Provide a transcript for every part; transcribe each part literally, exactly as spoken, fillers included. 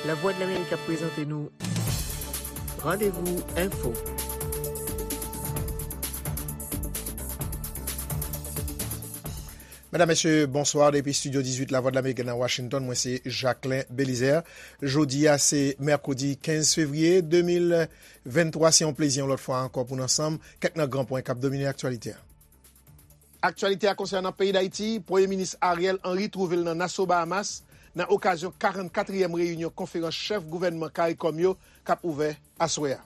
Lavwadlamerik ap prezante nou Randevou Enfo. Medam, mesye, bonswa. Depi estidyo dizuit Lavwadlamerik nan Washington, mwen se Jacquelin Belizaire. Jodi a se mèkredi kenz fevriye de mil venntwa. Se yon plezi yon lòt fwa ankò pou n ansanm kèk nan gran pwen k ap domine aktyalite a. Aktyalite a konsènan peyi Dayiti, Premye Minis Ariel Henry twouve l nan Nassau, Bahamas, nan okazyon karannkatriyèm reyinyon konferans chèf gouvènman CARICOM yo k ap ouvè aswè a.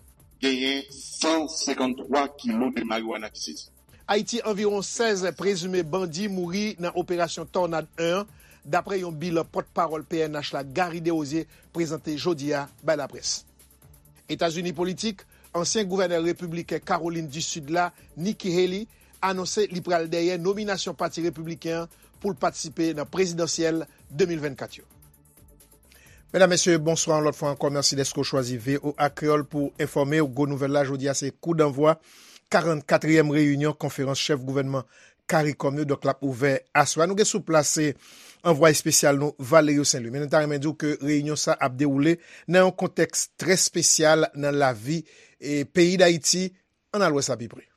Genyen san senkanntwa kilo de marijuana ki sezi. Ayiti, anviwon sèz prezime bandi mouri nan operasyon Tornade en an, dapre yon bilan pòtpawòl P N H la, Garry Desrosiers, prezante jodi a bay laprès. Etazini politik, ansyen gouvènè repibliken Kawolin di Sid la, Nikki Haley, anonse li pral dèyè nominasyon Pati Repibliken an pou l patisipe nan prezidansyèl de mil vennkat yo. Medam, mesye, bonswa yon lòt fwa ankò. Mèsi dèske w chwazi V O A Kreyòl pou enfòme w. Gwo nouvèl la jodi a, se kou danvwa karannkatriyèm reyinyon konferans chèf gouvènman CARICOM yo. Donk, l ap ouvè aswè a. Nou gen sou plas, se anvwaye espesyal nou, Valerio Saint Louis. Men nou ta renmen di w ke reyinyon sa ap dewoule nan yon kontèks trè espesyal nan lavi, e, peyi Dayiti. Ann al wè sa pi pre.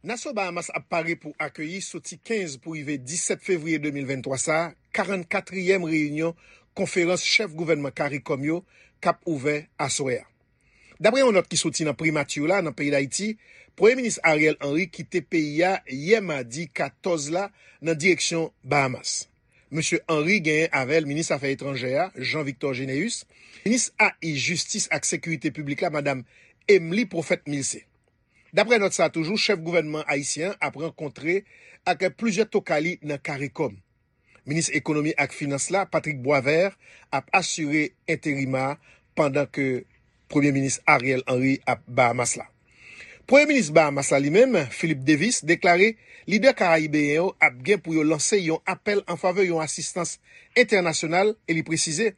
Nassau, Bahamas ap pare pou akeyi, soti kenz pou rive disèt fevriye de mil venntwa sa a, karannkatriyèm reyinyon konferans chèf gouvènman CARICOM yo k ap ouvè aswè a. Dapre yon nòt ki soti nan Primati la nan peyi Dayiti, Premye Minis Ariel Henry kite peyi a yè madi katòz la nan direksyon Bahamas. Mesye Henry genyen avè l minis afè etranjè a, Jean Victor Généus, minis A I, jistis ak sekirite piblik la, madam Emely Prophète Milcé. Dapre nòt sa a toujou, chèf gouvènman ayisyen an ap rankontre ak plizyè tokay li nan CARICOM. Minis ekonomi ak finans la, Patrick Boisvert, ap asire enterima a pandan ke Premye Minis Ariel Henry ap Bahamas la. Premye Minis Bahamas la li menm, Philip Davis, deklare lidè karayibeyen yo ap gen pou yo lanse yon apèl an favè yon asistans entènasyonal e li presize,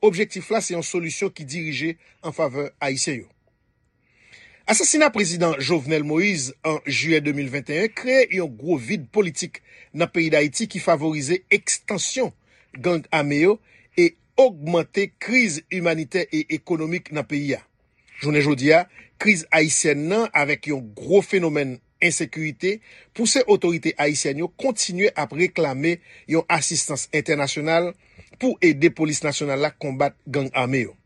objektif la se yon solisyon ki dirije an favè ayisyen yo. Asasina prezidan Jovenel Moïse an jiyè de mil venteyen kreye yon gwo vid politik nan peyi Dayiti ki favorize ekstansyon gang ame yo e ogmante kriz imanitè e ekonomik nan peyi a. Jounen jodi a, kriz ayisyèn nan, avèk yon gwo fenomèn ensekirite, pouse otorite ayisyèn yo kontinye ap reklame yon asistans entènasyonal pou ede polis nasyonal la konbat gang ame yo.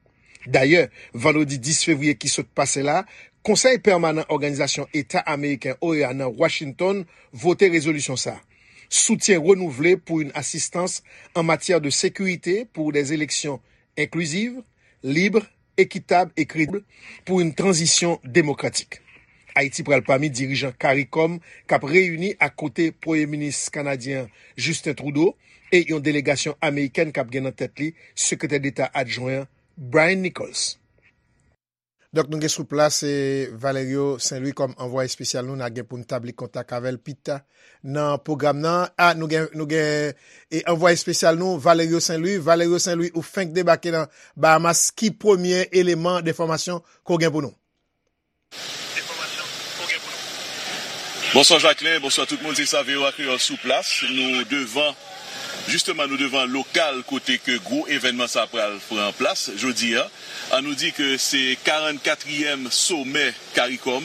Dayè, vandredi dis fevriye ki sot pase la, Konsèy Pèmanan Òganizasyon Eta Ameriken, O E A, nan Washington vote rezolisyon sa a. Soutyen renouvle pou yon asistans an matyè de sekirite, pou des eleksyon enkliziv, lib, ekitab e kredib, pou yon tranzisyon demokratik. Ayiti pral pami dirijan CARICOM k ap reyini ak kote Premye Minis kanadyen an, Justin Trudeau, e yon delegasyon amerikèn k ap gen nan tèt li Sekretè Deta adjwen an, Brian Nichols. Donk, nou gen sou plas, e, Valerio Saint Louis kòm anvwaye espesyal nou. N a gen pou n tabli kontak avè l pita nan pwogram nan. A, nou gen, nou gen, e, anvwaye espesyal nou, Valerio Saint Louis. Valerio Saint Louis, ou fenk debake nan Bahamas. Ki premye eleman de enfòmasyon ke w gen pou nou? Bonswa Jacquelin, bonswa tout moun, se sa V O A Kreyòl sou plas. Nou devan, jisteman, nou devan lokal kote ke gwo evènman sa pral pran plas jodi a. An nou di ke se karannkatriyèm somè CARICOM.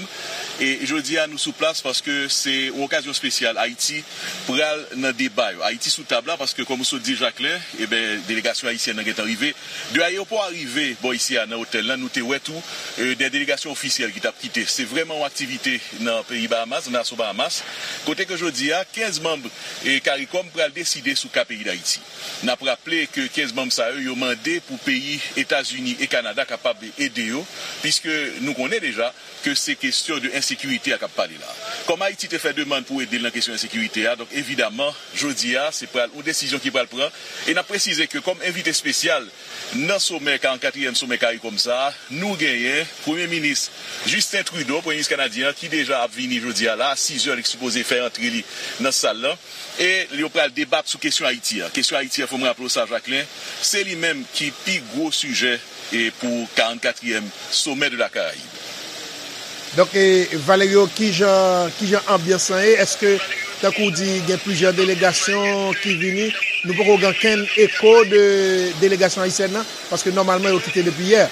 E jodi a, nou sou plas paske se yon okazyon espesyal. Ayiti pral nan deba yo. Ayiti sou tab la paske, kòm ou sot di, Jacquelin, eben, delegasyon ayisyèn nan gentan rive. De ayewopò a rive bò isi a nan otèl la, nou te wè tou, e, de delegasyon ofisyèl ki t ap kite. Se vrèman yon aktivite nan peyi Bahamas, nan Nassau, Bahamas, kote ke jodi a, kenz manm, e, CARICOM pral deside sou ka peyi Dayiti. N ap raple ke kenz manm sa yo, yo mande pou peyi Etazini e Kanada kapab ede yo, piske nou konnen deja ke se kesyon de ensekirite a k ap pale la. Kòm Ayiti te fè demann pou ede l nan kesyon ensekirite a, donk evidaman, jodi a, se pral yon desizyon ki pral pran. E n ap presize ke kòm envite espesyal nan somè, karannkatriyèm somè CARICOM sa a, nou genyen Premye Minis Justin Trudeau, Premye Minis kanadyen an, ki deja ap vini jodi a la, a sizè, li sipoze fè antre li nan sal lan. E yo pral debat sou kesyon Ayiti a. Kesyon Ayiti a, fò m raple w sa, Jacquelin, se li menm ki pi gwo sijè e pou karannkatriyèm Sommet de la Caraïbe. Donk, e, Valerio, kijan, kijan anbyans lan ye? Èske Tankou w di, gen plizyè delegasyon ki vini. Nou poko gen okenn eko de delegasyon ayisyèn nan, paske nòmalman yo kite depi yè.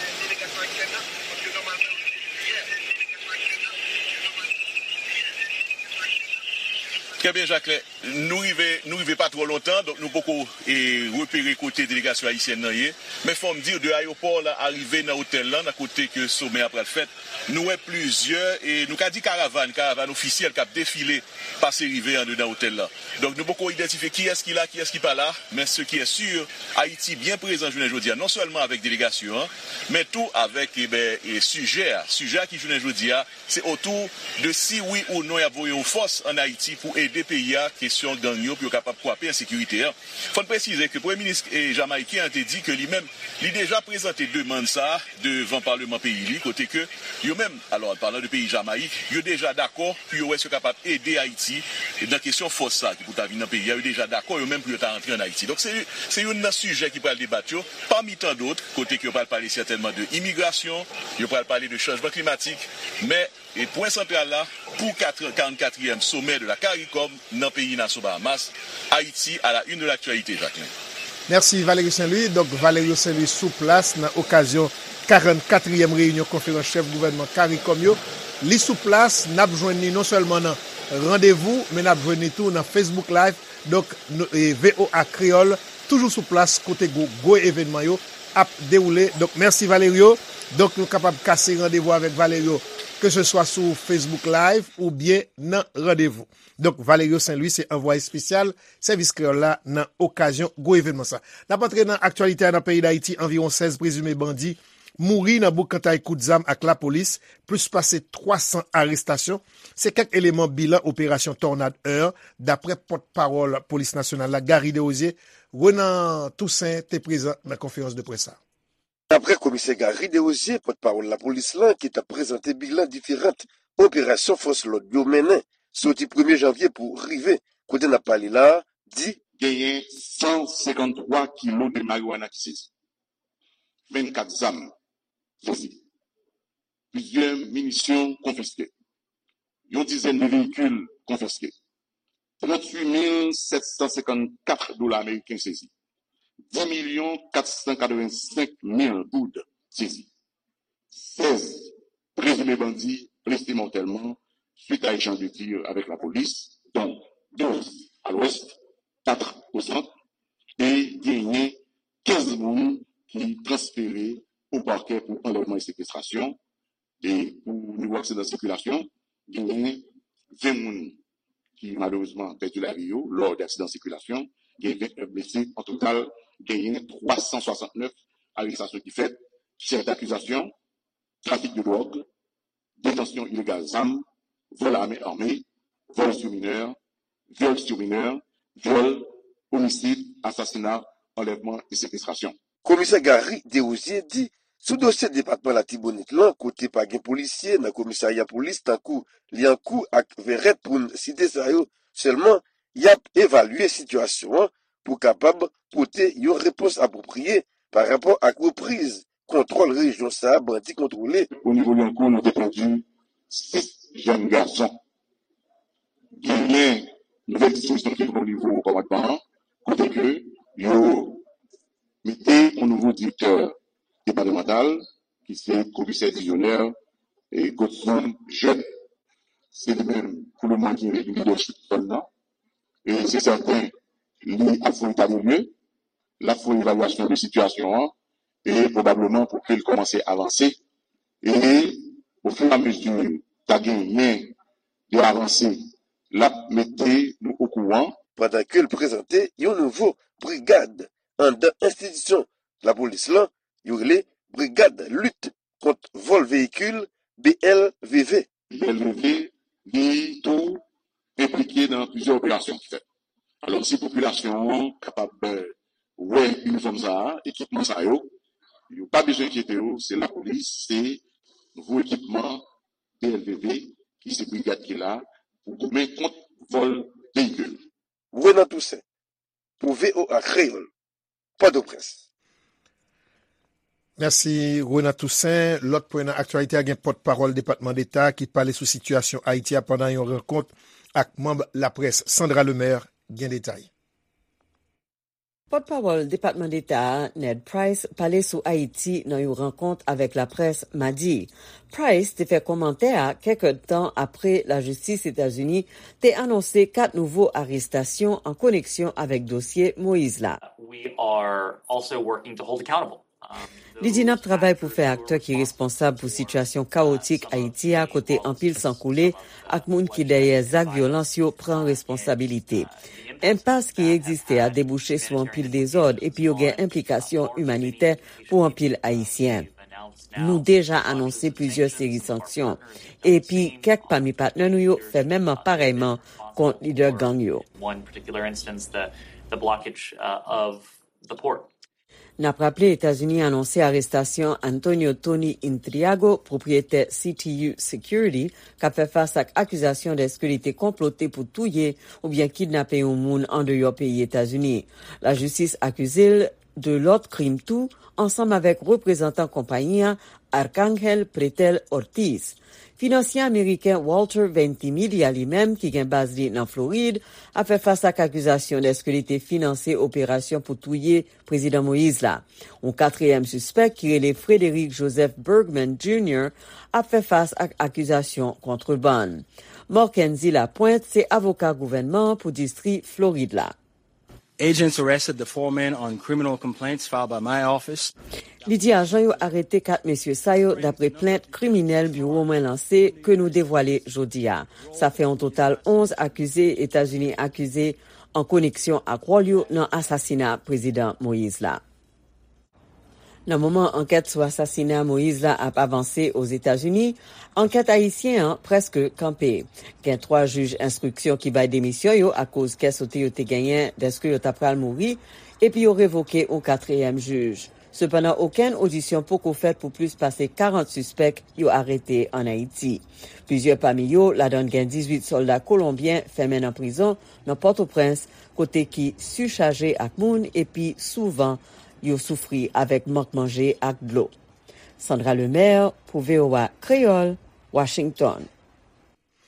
Trè byen, Jacquelin. Nou rive, nou rive pa twò lontan, donk nou poko e, repere kote delegasyon ayisyèn nan ye. Men fò m di w, de ayewopò la arive nan otèl lan, nan kote ke somè a pral fèt, nou wè plizyè, e nou ka di karavàn, karavàn ofisyèl k ap defile pase rive anndan otèl lan. Donk nou poko idantifye kiyès ki la, kiyès ki pa la, men ce qui est sûr, Ayiti byen prezan jounen jodi a, non sèlman avèk delegasyon an, men tou avèk e, ben, e, sijè a. Sijè a ki jounen jodi a, se otou de si wi ou non y ap voye yon fòs ann Ayiti pou ede peyi a kesyon gang yo, pou yo kapab kwape ensekirite an. Fò n presize ke premye minis e, jamayiken an te di ke li menm, li deja prezante demann sa a devan paleman peyi li, kote ke yo menm, alò, an palan de peyi Jamayik, yo deja dakò pou yo wè si yo kapab ede Ayiti nan kesyon fòs sa a ki pou ta vin nan peyi a, yo deja dakò yo menm pou yo ta antre ann Ayiti. Donk se, se youn nan sijè ki pral debat yo, pami tan dòt, kote ke yo pral pale sètènman de imigrasyon, yo pral pale de chanjman klimatik, men e pwen santral la, pou kat, karannkatriyèm sommet de la CARICOM nan peyi Nassau Bahamas, Haïti à la une de l'actualité, Jacquelin. Mèsi Valerio Saint Louis. Donk Valerio Saint Louis sou plas nan okazyon karannkatriyèm reyinyon konferans chèf gouvènman CARICOM yo. Li sou plas, n ap jwenn li non sèlman nan randevou, men n ap jwenn li tou nan Facebook Live. Donk, nou, e, V O A Kreyòl toujou sou plas kote gwo, gwo evènman yo ap dewoule. Donk, mèsi Valerio. Donk, nou kapab kase randevou avèk Valerio, ke se swa sou Facebook Live oubyen nan randevou. Donk, Valerio Saint Louis se anvwaye espesyal Sèvis Kreyòl la nan okazyon gwo evènman sa. N ap antre nan aktyalite a nan peyi Dayiti, anviwon sèz prezime bandi mouri nan boukantay kout zam ak lapolis, plis pase twa san arestasyon. Se kèk eleman bilan operasyon Tornade un, daprè pòtpawòl polis nasyonal la, Garry Desrosiers. Renan Toussaint te prezan nan konferans de près sa. Daprè komisè Garry Desrosiers, pòtpawòl lapolis lan ki t ap prezante bilan diferan operasyon fòs lòd yo mennen soti premye janvye pou rive kote n ap pale la a, di, genyen san senkanntwa kilo de mariwana ki sezi, vennkat zam sezi, plizyè minisyon konfiske, yon dizèn de veyikil konfiske, tranntuit mil sèt san senkannkat dola ameriken sezi, dis milyon kat san katrevensenk mil goud sezi, sèz prezime bandi blese mòtèlman suit a echanj de tir avèk lapolis, dont douz à l'ouest, quatre au centre, e genyen kenz moun ki transfere o pakè pou anlèvman e sekestrasyon. E pou nivo aksidan sikilasyon, genyen ven moun ki malerezman pèdi lavi yo lò de aksidan sikilasyon, genyen vennèf blese. An total, genyen twa san swasannnèf arestasyon ki fèt, chèf dakizasyon, trafik de dwòg, detansyon ilegal zam, vòl a men ame, vòl sou minè, vyòl sou minè, vyòl, omisid, asasina, anlèvman e sekestrasyon. Komisè Garry Desrosiers di, sou dosye depatman Latibonit lan, kote pa gen polisye nan komisarya polis tankou Lyankou ak Vèrèt pou n site sa yo sèlman, y ap evalye sitiyasyon an pou kapab pote yon repons apwopriye pa rapò ak repriz kontwòl rejyon sa a bandi kontwole. O nivo Lyankou, nou te pèdi sis jèn gason. Genyen nouvèl dispozisyon ki pran o nivo kòmandman an, kote ke yo mete yon nouvo direktè depatmantal, ki se komisè Dizonè e Godson Jeune. Se li menm, pou lemoman, ki lidèchip zòn nan. E se sèten, li ap fè yon eta de lye, l ap fè yon evalyasyon de sitiyasyon an, e pwobableman pou ke l kòmanse avanse. E ofiramezi ta genyen de avanse, l ap mete nou okouran. Pandan ke l prezante yon nouvo brigad anndan enstitisyon lapolis lan, yo rele Brigad Lit Kont Vòl Veyikil, B L V V. B L V V, li tou enplike nan plizyè operasyon ki fèt. Alò, si popilasyon an kapab, eh, wè inifòm sa a, ekipman sa yo, yo pa bezwen enkyete yo, se lapolis, se nouvo ekipman B L V V, ki se brigad ki la pou goumen kont vòl veyikil. Renan Toussaint, pou V O A Kreyòl, Pòtoprens. Mèsi, Renan Toussaint. Lòt pwen nan aktyalite a, gen pòtpawòl Depatman Deta ki pale sou sitiyasyon Ayiti a pandan yon rankont ak manm laprès. Sandra Lemaire gen detay. Pòtpawòl Depatman Deta a, Ned Price, pale sou Ayiti nan yon rankont avèk laprès madi. Price te fè kòmantè a kèk èdtan apre lajistis Etazini te anonse kat nouvo arestasyon an koneksyon avèk dosye Moyiz la. We are also working to hold accountable. Li di n ap travay pou fè aktè ki responsab pou sitiyasyon kawotik Ayiti a, kote anpil san koule ak moun ki dèyè zak vyolans yo pran responsabilite. Enpas ki egziste a debouche sou anpil dezòd epi yo gen enplikasyon imanitè pou anpil Ayisyen. Nou deja anonse plizyè seri sanksyon, epi kèk pami patnè nou yo fè menm parèyman kont lidè gang yo. One particular instance, the, the blockage uh, of the port. N ap raple, Etazini anonse arestasyon Antonio Tony Intriago, pwopriyetè C T U Security, k ap fè fas ak akizasyon dèske li te konplote pou touye oubyen kidnape yon moun andeyò peyi Etazini. Lajistis akize l de lòt krim tou, ansanm avèk reprezantan konpayi a, Arcángel Pretel Ortiz. Finansye ameriken Walter Ventimiglia, li menm, ki gen baz li nan Florid, ap fè fas ak akizasyon dèske li te finanse operasyon pou touye Prezidan Moyiz la. Yon katriyèm sispèk ki rele Frederick Joseph Bergman Junior ap fè fas ak akizasyon kontrebann. Morkenzi Lapwent se avoka gouvènman an pou distri Florid la. Agents arrested the four men on criminal complaints filed by my office. Li di ajan yo arete kat mesye sa yo dapre plent kriminèl biwo mwen lanse ke nou devwale jodi a. Sa fè yon total onz akize Etazini akize an koneksyon ak wòl yo nan asasina Prezidan Moyiz la. Nan moman ankèt sou asasina Moyiz la ap avanse Ozetazini, ankèt ayisyen an prèske kanpe. Gen twa jij enstriksyon ki bay demisyon yo akoz kè sote yo te genyen dèske yo ta pral mouri, epi yo revoke yon katriyèm jij. Sepandan, okenn odisyon poko fèt pou plis pase karant sispèk yo arete ann Ayiti. Plizyè pami yo, ladan gen dizuit sòlda kolonbyen, fèmen nan prizon nan Pòtoprens, kote ki sichaje ak moun epi souvan yo soufri avèk mank manje ak dlo. Sandra Lemaire pou V O A Kreyòl, Washington.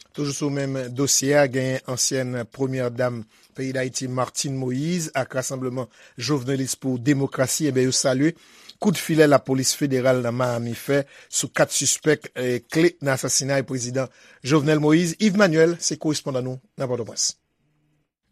Toujou sou menm dosye a, genyen ansyèn premyè dam peyi Dayiti, Martine Moïse, ak Rasanbleman Jovenelis pou Demokrasi, enben, yo salye kout filè lapolis federal nan Miami fè sou kat sispèk, eh, kle nan asasinay prezidan Jovenel Moïse. Yves Manuel se korespondan nou nan Pòtoprens.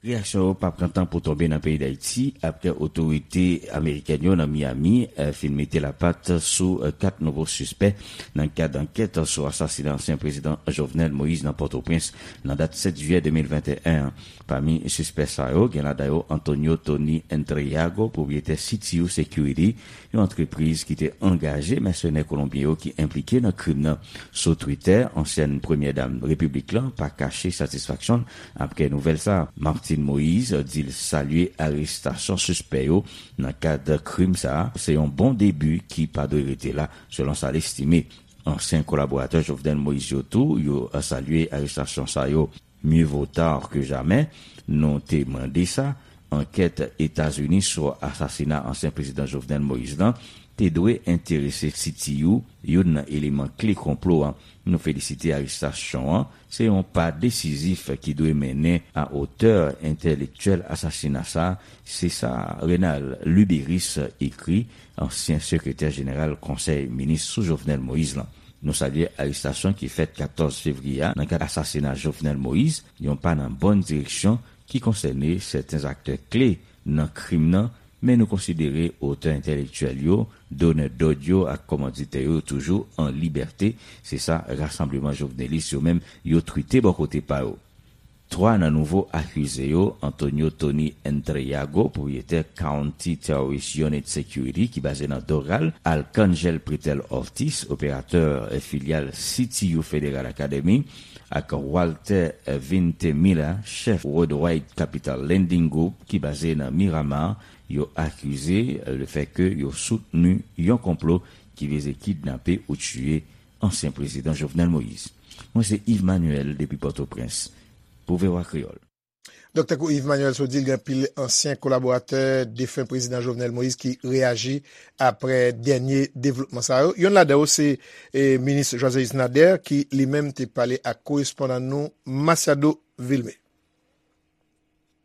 Reyaksyon yo p ap pran tan pou tonbe nan peyi Dayiti, apre otorite amerikèn yo nan Miami, eh, fin mete lapat sou, eh, kat nouvo sispè nan kad ankèt sou asasina ansyen prezidan Jovenel Moïse nan Pòtoprens nan dat sèt jiyè de mil venteyen an. Pami sispè sa yo, gen ladan yo Antonio Tony Entreago, pwopriyetè C T U Security, yon antrepriz ki te angaje mèsenè kolonbyen yo ki enplike nan krim nan. Sou Twitter, ansyèn premyè dam repiblik lan pa kache satisfaksyon l apre nouvèl sa a. Martine Moïse di l salye arestasyon sispè yo nan kad krim sa a. Se yon bon debi ki pa dwe rete la, selon sa l estime. Ansyen kolaboratè Jovenel Moïse yo tou, yo salye arestasyon sa yo. Mieux vaut tard que jamais, nou te mande sa. Ankèt Etazini sou asasina ansyen prezidan Jovenel Moïse lan te dwe enterese C T U, youn nan eleman kle konplo a. Nou felisite arestasyon an. Se yon pa desizif ki dwe mennen a otè entèlektyèl asasina sa. Se sa Renald Luberice ekri, ansyen sekretè jeneral Konsèy Minis sou Jovenel Moïse lan. Nou salye arestasyon ki fèt katòz fevriye a nan kad asasina Jovenel Moïse, yon pa nan bòn direksyon ki konsène sèten aktè kle nan krim nan, men nou konsidere otè entèlektyèl yo, donè dòd yo ak kòmanditè yo toujou an libète, se sa Rasanbleman Jovenelis yo menm yo twite bò kote pa yo. Twa nan nouvo akize yo, Antonio Tony Entreago, pwopriyetè County Terrorist Unit Security ki baze nan Doral, Arcángel Pretel Ortiz, operatè, eh, filyal C T U Federal Academy, ak Walter, eh, Vintemilla, chèf Worldwide Capital Lending Group ki baze nan Miramar, yo akize, eh, lefètke yo soutni yon konplo ki vize kidnape ou tiye ansyen prezidan Jovenel Moïse. Mwen se Yves Manuel depi Pòtoprens pou V O A Kreyòl. Donk, tankou Yves Manuel sot di l, gen anpil ansyen kolaboratè defen prezidan Jovenel Moïse ki reyaji apre dènye devlopman sa yo. Youn ladan yo se, eh, minis Joiselius Nader, ki li menm te pale ak korespondan nou Masiado Vilmé.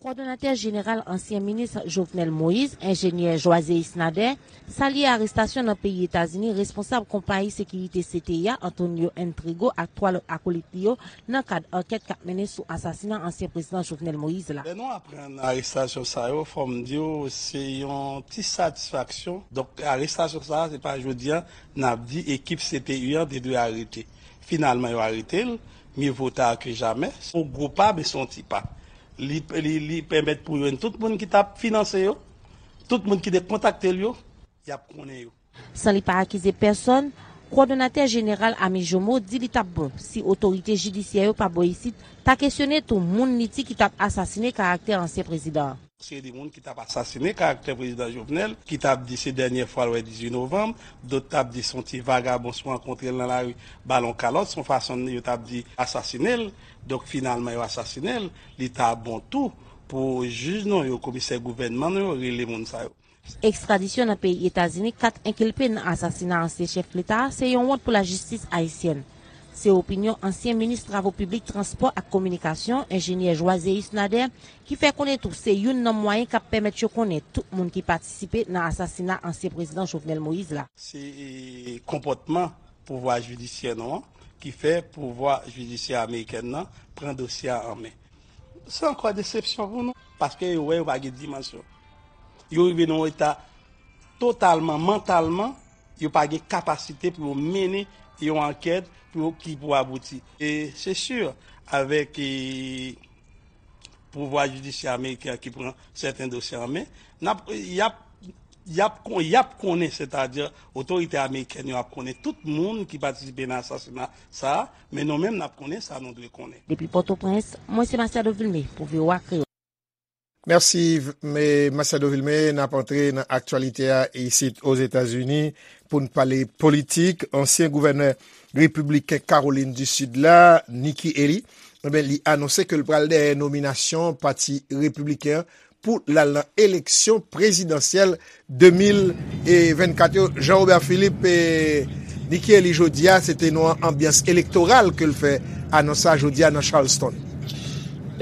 Kowòdonatè jeneral ansyen minis Jovenel Moïse, enjenyè Joiséus Nader, salye arestasyon nan peyi Etazini responsab konpayi sekirite C T I a, Antonio N Trigo, ak twa lòt akolit li yo nan kad ankèt k ap mennen sou asasina ansyen prezidan Jovenel Moïse la. Lè nou aprann arestasyon sa yo, fò m di w, se yon ti satisfaksyon. Donk, arestasyon sa a, se pa jodi a n ap di ekip C T I an te dwe arete. Finalman, yo arete l, mieux vaut tard que jamais. Se yon gwo pa, men se yon ti pa. Li, li, li pèmèt pou jwenn tout moun ki t ap finanse yo, tout moun ki te kontakte l yo, y ap konnen yo. San li pa akize pèsòn, kowòdonatè jeneral Ami Jomo di li t ap bon si otorite jidisyè yo pa bò isit ta kesyone tou moun li di ki t ap asasine karaktè ansyen prezidan an. Seri de moun ki t ap asasine karaktè prezidan Jovenel, ki t ap di se dènye fwa l wè dizuit novanm, dòt t ap di se yon ti vagabon si w rankontre l nan lari ba l yon kalòt, se yon fason yo t ap di asasine l, donk finalman yo asasine l, li ta bon tou pou jij nou yo, komisè gouvènman nou yo rele moun sa yo. Ekstradisyon nan peyi Etazini kat enkilpe nan asasina ansyen chèf leta a se yon wont pou lajistis ayisyèn. Se opinyon ansyen minis travo piblik, transpò ak kominikasyon, enjenyè Joiséus Nader, ki fè konnen tou se youn nan mwayen k ap pèmèt yo konnen tout moun ki patisipe nan asasina ansyen prezidan Jovenel Moïse la. Se konpòtman pouvwa jidisyè nou an ki fè pouvwa jidisyè amerikèn nan pran dosye a an men. Se ankò desepsyon pou nou, paske yo wè yo pa gen dimansyon. Yo rive nan yon eta totalman, mantalman, yo pa gen kapasite pou yo mennen yon ankèt pou yo, ki pou abouti. E se si, avèk e, pouvwa jidisyè ameriken an ki pran sèten dosye an men, n ap, y ap, y ap, kon- y ap konnen, sètadi otorite amerikèn yo ap konnen tout moun ki patisipe nan asasina sa a, men nou menm n ap konnen sa nou dwe konnen. Depi Pòtoprens, mwen se Masiado Vilmé pou V O A Kreyòl. Mèsi, Masiado Vilmé. N ap antre nan aktyalite a isit Ozetazini pou n pale politik. Ansyen gouvènè repibliken Kawolin di Sid la, Nikki Haley, ebyen, li anonse ke l pral dèyè nominasyon Pati Repibliken an pou l al nan eleksyon prezidansyèl de mil vennkat yo. Jean Robert Philippe, e, Nikki Haley jodi a, se te nan yon anbyans elektoral ke l fè anons sa jodi a nan Charleston.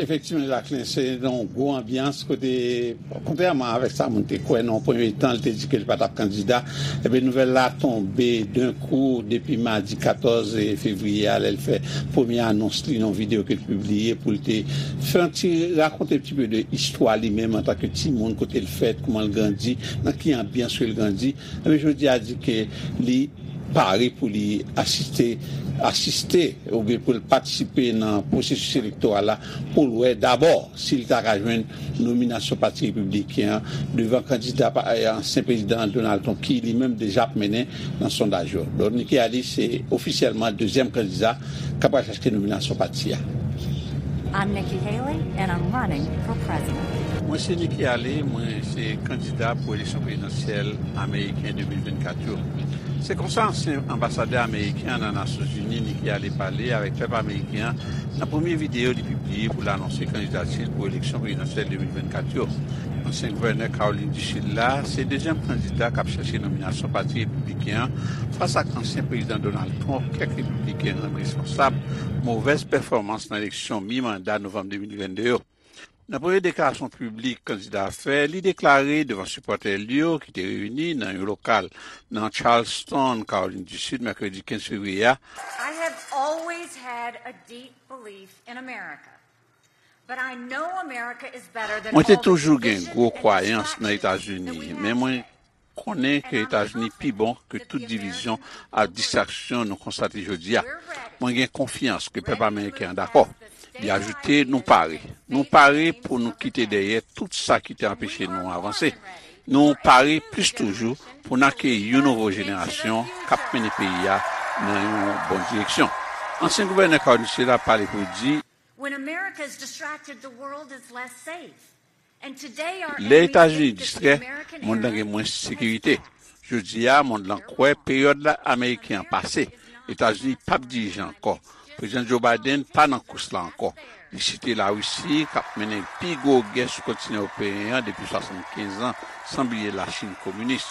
Efektivman, Jacquelin, se nan yon gwo anbyans kote, kontrèman avèk sa moun te kwè nan yon premye tan, li te di ke li pa t ap kandida. Ebyen, nouvèl la tonbe denkou depi madi katòz fevriye a, lè l fè premye anons li nan yon videyo ke l pibliye pou l te fè yon ti rakonte yon ti pe de istwa li menm antanke timoun, kote l fèt, kouman l grandi, nan ki anbyans ke l grandi. Ebyen, jodi a di ke li pare pou li asiste, asiste oubyen pou l patisipe nan pwosesis elektoral la pou l wè dabò si l ta ka jwenn nominasyon Pati Repibliken an devan kandida pa- ansyen prezidan Donald Trump ki li menm deja ap mennen nan sondaj yo. Donk, Nikki Haley se ofisyèlman dezyèm kandida k ap al chache nominasyon pati a. I'm Nikki Haley, and I'm running for president. Mwen se Nikki Haley, mwen se kandida pou eleksyon prezidansyèl ameriken de mil vennkat yo. Se konsa ansyen anbasadè ameriken an nan Nasyonzini, Nikki Haley, pale avèk pèp ameriken an nan premye videyo li pibliye pou l anonse kandidati l pou eleksyon prezidansyèl de mil vennkat yo. Ansyen gouvènè Kawolin di Sid la se dezyèm kandida k ap chache nominasyon Pati Repibliken an fas ak ansyen prezidan Donald Trump, kèk repibliken rann responsab movèz pèfòmans nan eleksyon mi-manda novanm de mil vennde yo. Nan premye deklarasyon piblik kandida a fè, li deklare devan sipòtè li yo ki te reyini nan yon lokal nan Charleston, Kawolin di Sid, mèkredi kenz fevriye a, I have always had a deep belief in America, but I know America is better than Mwen te all the toujou gen division gwo and kwayans nan destruction Etazini, that we men have mwen konnen ke Etazini pi bon ke tout divizyon ak distraksyon nou konstate jodi a. Mwen gen konfyans ke pèp ameriken an dakò. Li ajoute, nou pare. Nou pare pou nou kite dèyè tout sa ki te anpeche nou avanse. Nou pare plis toujou pou n akeyi yon nouvo jenerasyon k ap mennen peyi a nan yon bon direksyon. Ansyen gouvènè Kawolin di Sid la pale pou di, When America is distracted, the world is less safe. Lè Etazini distrè, mond lan gen mwens sekirite. Jodi a, mond lan kwè peryòd la ameriken an pase. Etazini p ap dirije ankò. Prezidan Joe Biden pa nan kous la ankò. Li site Larisi, k ap mennen pi gwo gè sou kontinan ewopeyen an depi swasannkenz an, san bliye Lachin kominis.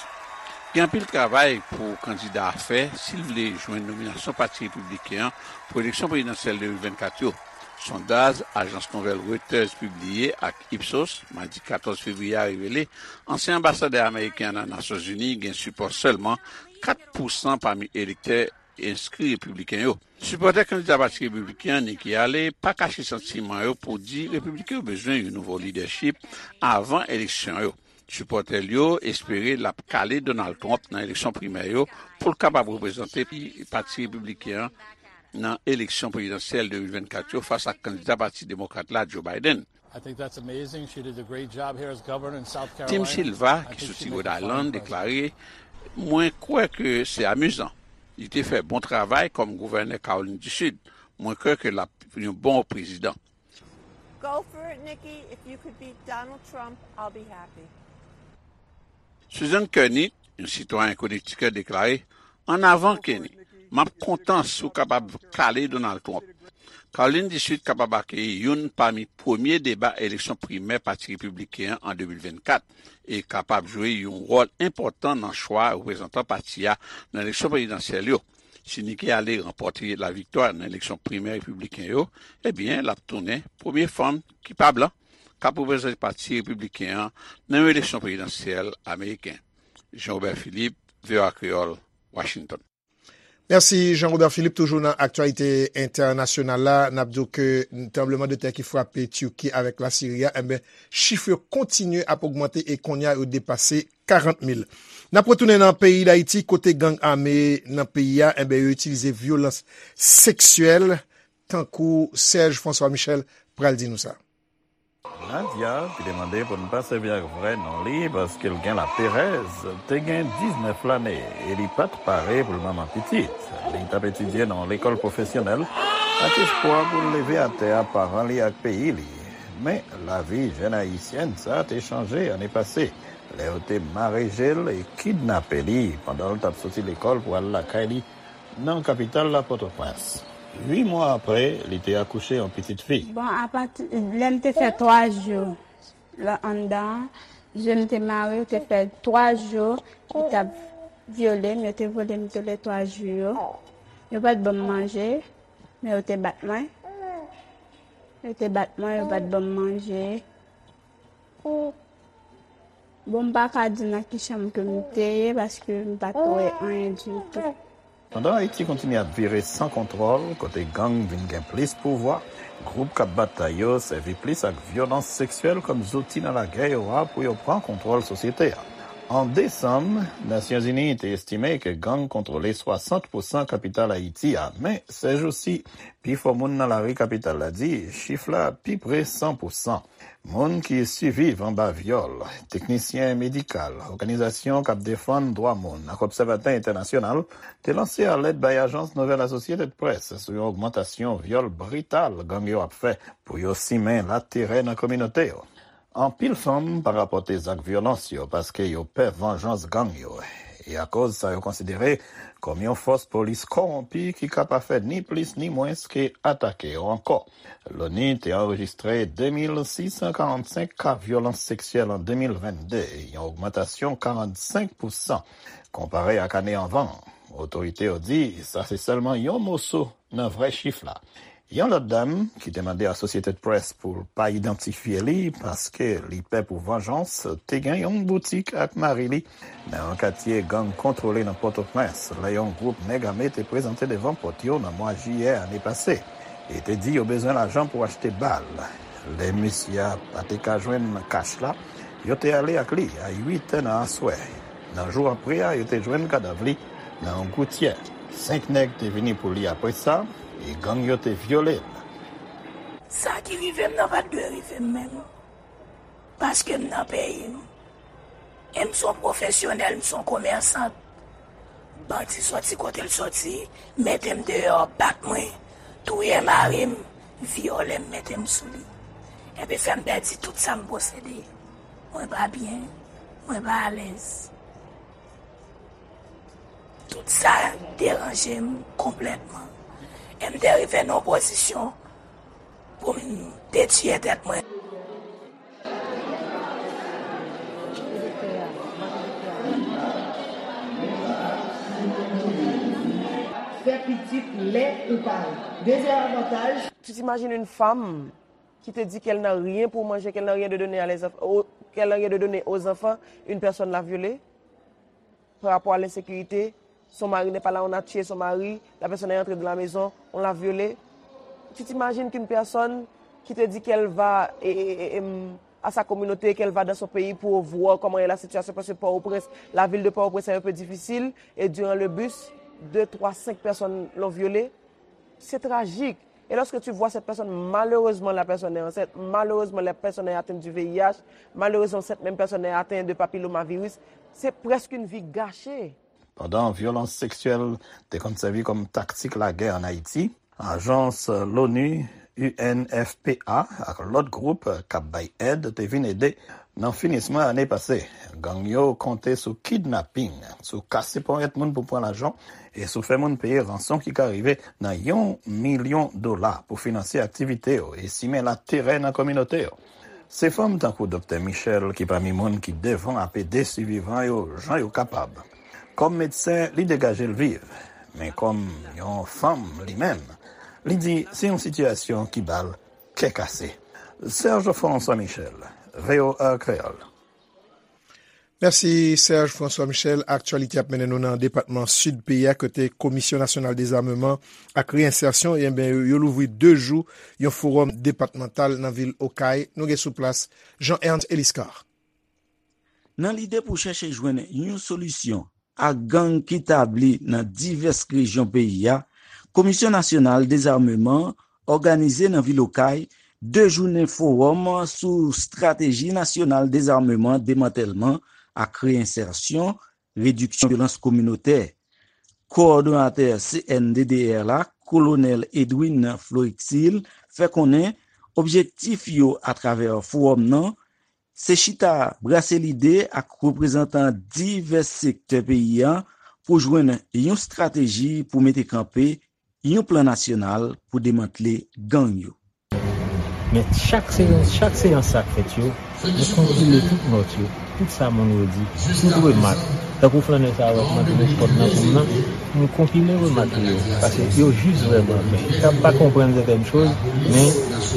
Gen anpil travay pou kandida a fè si l vle jwenn nominasyon Pati Repibliken an pou eleksyon prezidansyèl de mil vennkat yo. Sondaj ajans nouvèl Reuters pibliye ak Ipsos madi katòz fevriye a revele ansyen anbasadè ameriken an nan Nasyonzini gen sipò sèlman kat pousan pami elektè enskri repibliken yo. Sipòtè kandida Pati Repibliken an, Nikki Haley, pa kache santiman yo pou di Repibliken yo bezwen yon nouvo lidèchip avan eleksyon yo. Sipòtè l yo espere l ap kale Donald Trump nan eleksyon primè yo pou l kapab reprezante Pati Repibliken an nan eleksyon prezidansyèl de mil vennkat yo fas ak kandida Pati Demokrat la, Joe Biden. Tim Silva, ki soti Rhode Island, deklare, mwen kwè ke se amizan. Li te fè bon travay kòm gouvènè Kawolin di Sid. Mwen kwè ke l ap yon bon prezidan. Go for it, Nikki. If you could beat Donald Trump, I'll be happy. Susan Kearney, yon sitwayen Konektikèt, deklare, ann avan, Kenny. M ap kontan si w kapab kale Donald Trump. Kawolin di Sid kapab akeyi youn pami premye deba eleksyon primè Pati Repibliken an an de mil vennkat e kapab jwe yon wòl enpòtan nan chwa reprezantan pati a nan eleksyon prezidansyèl yo. Si Nikki Haley ranpòte laviktwa nan eleksyon primè repibliken yo, ebyen, l ap tounen premye fanm ki pa blan k ap reprezante Pati Repibliken an nan yon eleksyon prezidansyèl ameriken. Jean Robert Philippe, V O A Kreyòl, Washington. Mèsi, Jean Robert Philippe. Toujou nan aktyalite entènasyonal la, n ap di w ke tranblemanntè ki frape Tiki avèk Lasiri a, enben, chif yo kontinye ap ogmante e kounye a yo depase karant mil. N ap retounen nan peyi Dayiti, kote gang ame nan peyi a, enben, yo itilize vyolans seksyèl, tankou Serge François Michel pral di nou sa. Nadia, ki te mande pou n pa sèvi ak vrè non li paske l gen laperèz, te gen diznèf lane e li pa t pare pou l manman pitit. Li t ap etidye nan yon lekòl pwofesyonèl ak espwa pou l leve atè a paran li ak peyi li. Men, lavi jèn ayisyèn sa a te chanje ane pase, lè yo te mare je l e kidnape li pandan l t ap soti lekòl pou al lakay li nan kapital la, Pòtoprens. Uit mwa apre, li te akouche yon pitit fi. Bon, apati lè m te fè twa jou la anndan an, je m te mare, yo te fè twa jou, yo t ap vyole m, yo te vole m tou le twa jou yo. Yo pa t ban m manje, men yo te bat mwen. Yo te bat mwen, yo pa t ban m manje. Bon, m pa ka di nan ki chanm ke m te ye, paske m pa t wè anyen ditou. Pandan Ayiti kontinye ap vire san kontwòl, kote gang vin gen plis pouvwa, gwoup k ap batay yo sèvi plis ak vyolans seksyèl kòm zouti nan lagè yo a pou yo pran kontwòl sosyete a. An desanm, Nasyonzini te estime ke gang kontwole swasant pousan kapital Ayiti a, men, sèjousi, pifò moun nan lari kapital la di chif la pi pre san pousan. Moun ki siviv anba vyòl, teknisyen medikal, òganizasyon k ap defann dwa moun ak obsèvatè entènasyonal te lanse alèt bay ajans nouvèl Associated Press sou yon ogmantasyon vyòl brital gang yo ap fè pou yo simen laterè nan kominote yo. Anpil fanm pa rapòte zak vyolans yo paske yo pè vanjans gang yo, e akoz sa yo konsidere kòm yon fòs polis kòwonpi ki ka pa fè ni plis ni mwens ke atake yo ankò. Loni te anrejistre de mil sis san karannsenk ka vyolans seksyèl an de mil vennde, yon ogmantasyon karannsenk pousan konpare ak ane anvan. Otorite yo di sa se sèlman yon moso nan vrè chif la. Yon lòt dam, ki te mande Associated Press pou l pa idantifye li paske li pè pou vanjans, te gen yon boutik ak mari li nan yon katye gang kontwole nan Pòtoprens, lè yon gwoup nèg ame te prezante devan pòt yo nan mwa jiyè ane pase, e te di yo bezwen lajan pou achte bal. Lè mesye a pa te ka jwenn kach la, yo te ale ak li a uit è nan aswè. Nan jou apre a, yo te jwenn kadav li nan yon goutyè. Senk nèg te vini pou li apre sa, e gang yo te vyole l. Sa ki rive m nan pa t dwe rive m menm. Paske m nan peyi m. E m se yon pwofesyonèl, m se yon komèsant. Bandi soti kote l soti, mete m deyò, bat mwen, touye mari m, vyole m, mete m sou li. Epi fè m pèdi tout sa m posede. Mwen pa byen, mwen pa alèz. Tout sa deranje m konplètman. E m te rive nan yon pozisyon pou m detwiye tèt mwen. Fè pitit lè ou pare. Dezyèm avantaj. Tu t'imagines une femme qui te dit qu'elle n'a rien pour manger, qu'elle n'a rien de donner à les enfants, qu'elle n'a rien de donner aux enfants, une personne l'a violée par rapport à l'insécurité. Son mari n'est pas là, on a tué son mari, la personne est entrée dans la maison, on l'a violée. Tu t'imagines qu'une personne qui te dit qu'elle va et, et- et- et, hum, à sa communauté, qu'elle va dans son pays pour voir comment est la situation, parce que Port-au-Prince, la ville de Port-au-Prince est un peu difficile, et durant le bus, deux, trois, cinq personnes l'ont violée. C'est tragique. Et lorsque tu vois cette personne, malheureusement, la personne est enceinte, malheureusement, la personne est atteinte du V I H, malheureusement, cette même personne est atteinte de papillomavirus, c'est presque une vie gâchée. Pandan vyolans seksyèl te konn sèvi kòm taktik lagè ann Ayiti, ajans l'ONU, U N F P A, ak lòt gwoup k ap bay èd te vin ede nan finisman ane pase. Gang yo konte sou kidnaping, sou kase ponyèt moun pou pran lajan, e sou fè moun peye ranson ki ka rive nan yon milyon dola pou finanse aktivite yo e simen laterè nan kominote yo. Se fanm tankou Doktè Michel ki pami moun ki devan ap ede sivivan yo jan yo kapab. Kòm medsen, li degaje l viv, men kòm yon fanm li menm, li di se yon sitiyasyon ki ba l kè kase. Serge François Michel, V O A Kreyòl. Mèsi, Serge François Michel. Aktyalite ap mennen nou nan depatman Sid peyi a, kote Komisyon Nasyonal Dezameman ak Reyensèsyon, enben, yo, yo louvri de jou yon fowòm depatmantal nan vil Okay. Nou gen sou plas Jean Ernst Eliscar. Nan lide pou chèche jwenn yon solisyon a gang ki tabli nan divès rejyon peyi a, Komisyon Nasyonal Dezameman òganize nan vil Okay de jounen fowòm sou estrateji nasyonal dezameman, demantèlman ak reyensèsyon, rediksyon vyolans kominotè. Kowòdonatè C N D D R la, Kolonèl Edwin Florixil, fè konnen objektif yo atravè fowòm nan se chita brase lide ak reprezantan divès sektè peyi a pou jwenn yon estrateji pou mete kanpe yon plan nasyonal pou demantle gang yo. Men chak seyans, chak seyans sa k fèt yo, nou konpile tout nòt yo, tout sa moun yo di, tout remak. Tankou flannè sa a wè k monte nan pòt nan pou m nan, m konpile remak li yo, paske yo jis vrèman bèl. K ap pa konprann sètèn choz, men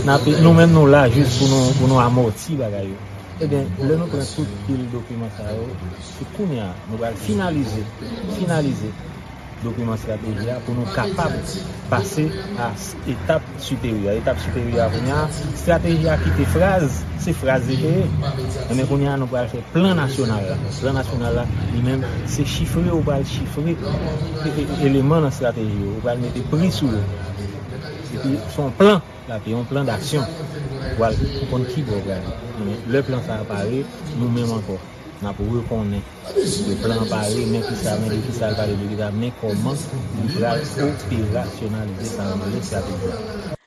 n ape, nou menm nou la jis pou nou, pou nou amòti bagay yo. Ebyen, lè nou pran tout pil dokiman sa yo, se kounye a nou pral finalize, finalize dokiman estrateji a pou nou kapab pase a s-, etap siperyè. Etap siperyè a kounye a, estrateji a kite fraz, se fraz li te ye. Ebyen, kounye a nou pral fè plan nasyonal la. Plan nasyonal la, li menm, se chifre, ou pral chifre e, e, eleman nan estrateji yo, ou pral mete pri sou yo. Epi, se yon plan. L ap yon plan daksyon. Pral konn ki bò pral. Men lè plan sa a pare, nou menm ankò, n ap rekonnen ke plan an pare, men kisa, men de kisa l pale, de kisa, men kòman li pral operasyonalize sa nan estrateji a.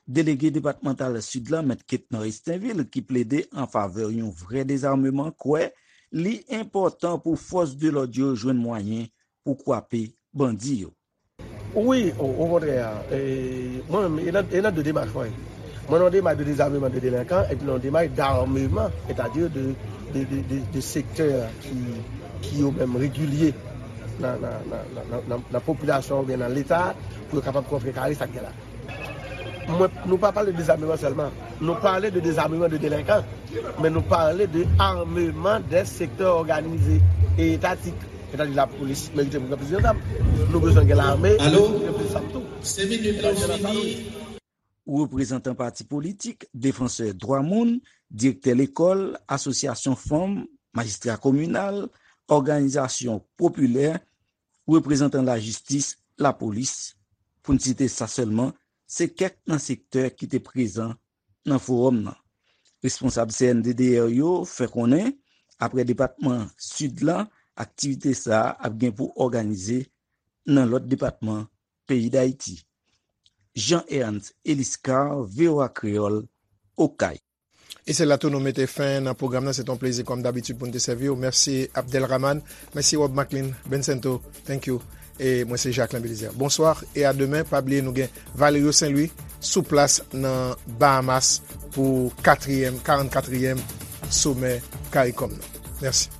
Delege depatmantal Sid la, Mèt Ketnor Estinvil, ki plede an favè yon vrè dezameman, kwè li enpòtan pou fòs de lòd yo jwenn mwayen pou kwape bandi yo. Wi, o, okontrè, e, mwen menm, e nan, e nan de demach mwen ye. Mwen nan yon demach de dezameman de delenkan, epi nan yon demach d'ameman, sètadi de, de, de, de, de sektè ki, ki yo menm regilye nan, nan, nan, nan, nan, nan popilasyon oubyen nan Leta, pou yo kapab kontrkare sa k gen la. Mwen, nou pa pale de dezameman sèlman, nou pale de dezameman de delenkan, men nou pale de ameman dè sektè òganize e etatik. Sètadi lapolis merite pou gen plis de zam. Nou bezwen gen lame, alo? Gen plis zam tou. Se minit la fini. Reprezantan pati politik, defansè dwa moun, direktè lekòl, asosyasyon fanm, majistra kominal, òganizasyon popilè, reprezantan lajistis, lapolis, pou n site sa sèlman, se kèk nan sektè ki te prezan nan fowòm nan. Responsab C N D D R yo fè konnen, aprè depatman Sid la, aktivite sa a ap gen pou òganize nan lòt depatman peyi Dayiti. Jean Ernst Eliscar, V O A Kreyòl, Okay. E se la tou nou mete fen nan pwogram nan. Se t on plezi kòm dabitid pou n te sèvi w. Mèsi Abdelrahman. Mèsi Rob Macklin, Bencento. Thank you. E mwen se Jacquelin Belizaire. Bonswa e a demen. Pa bliye nou gen Valerio Saint Louis sou plas nan Bahamas pou katriyèm, karannkatriyèm somè CARICOM nan. Mèsi.